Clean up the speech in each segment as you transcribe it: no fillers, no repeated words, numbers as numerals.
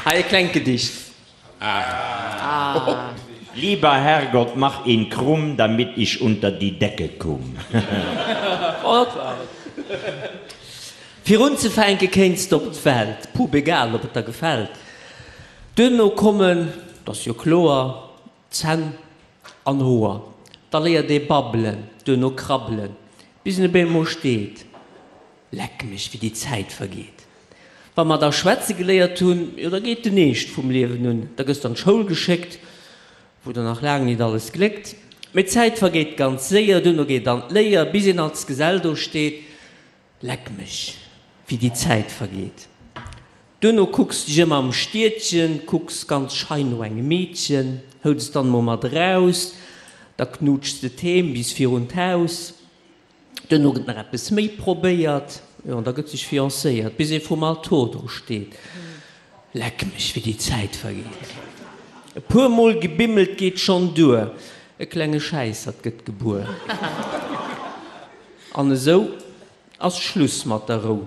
Hei e klengt Gedicht. Lieber Herrgott, mach ihn krumm, damit ich unter die Decke kumm. Oh, dat war et. Fir unzefänke kéints de op d'Welt, pup egal ob et der gefält. Duerno kommen, 't ass jo kloer, Zänn an Hoer. Da léiert ee babbelen, duerno krabbelen, bis en op eemol steet. Leck mech, wéi déi Zäit vergeet. Wa mer da schwätze geléiert hunn, jo da geet den Eescht vum Liewen un. Da gëss d'an d'Schoul geschéckt, wou der nach laang nit alles gléckt. Mee d'Zäit vergeet ganz séier, duerno geet an d'Léier, bis een als Gesell do steet. Leck mech, wéi déi Zäit vergeet. Duerno kucks dech ëm am Stiedchen, kucks ganz schei no engem Meedchen, hëls et dann emol mat eraus, da knuutschs de d'Heem bis virun d'Haus. Duerno gëtt nach eppes méi probéiert, jo, an da gëtt sech fiancéiert, bis ee vrum Altor do steet. Leck mech, wéi déi Zäit vergeet! E puer Mol gebimmelt geet schonn duer, e klenge Schäissert gëtt gebuer. An esou ass Schluss mat der Rou,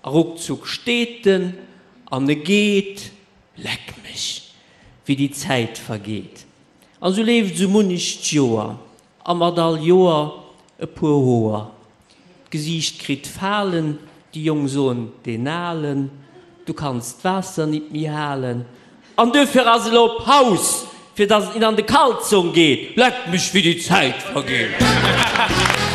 a ruckzuck steet en an e geet. Leck mech, wéi déi Zäit vergeet! An esou leeft esou munnecht Joer, A mat all Joer e puer Hoer. D'Gesiicht kritt Falen, déi Jong soen, deen Alen, du kanns d'Waasser nit méi halen. An duerfir ass elo Paus, fir dass et nit an de Kalzong geet. Leck mech, wéi déi Zäit vergeet!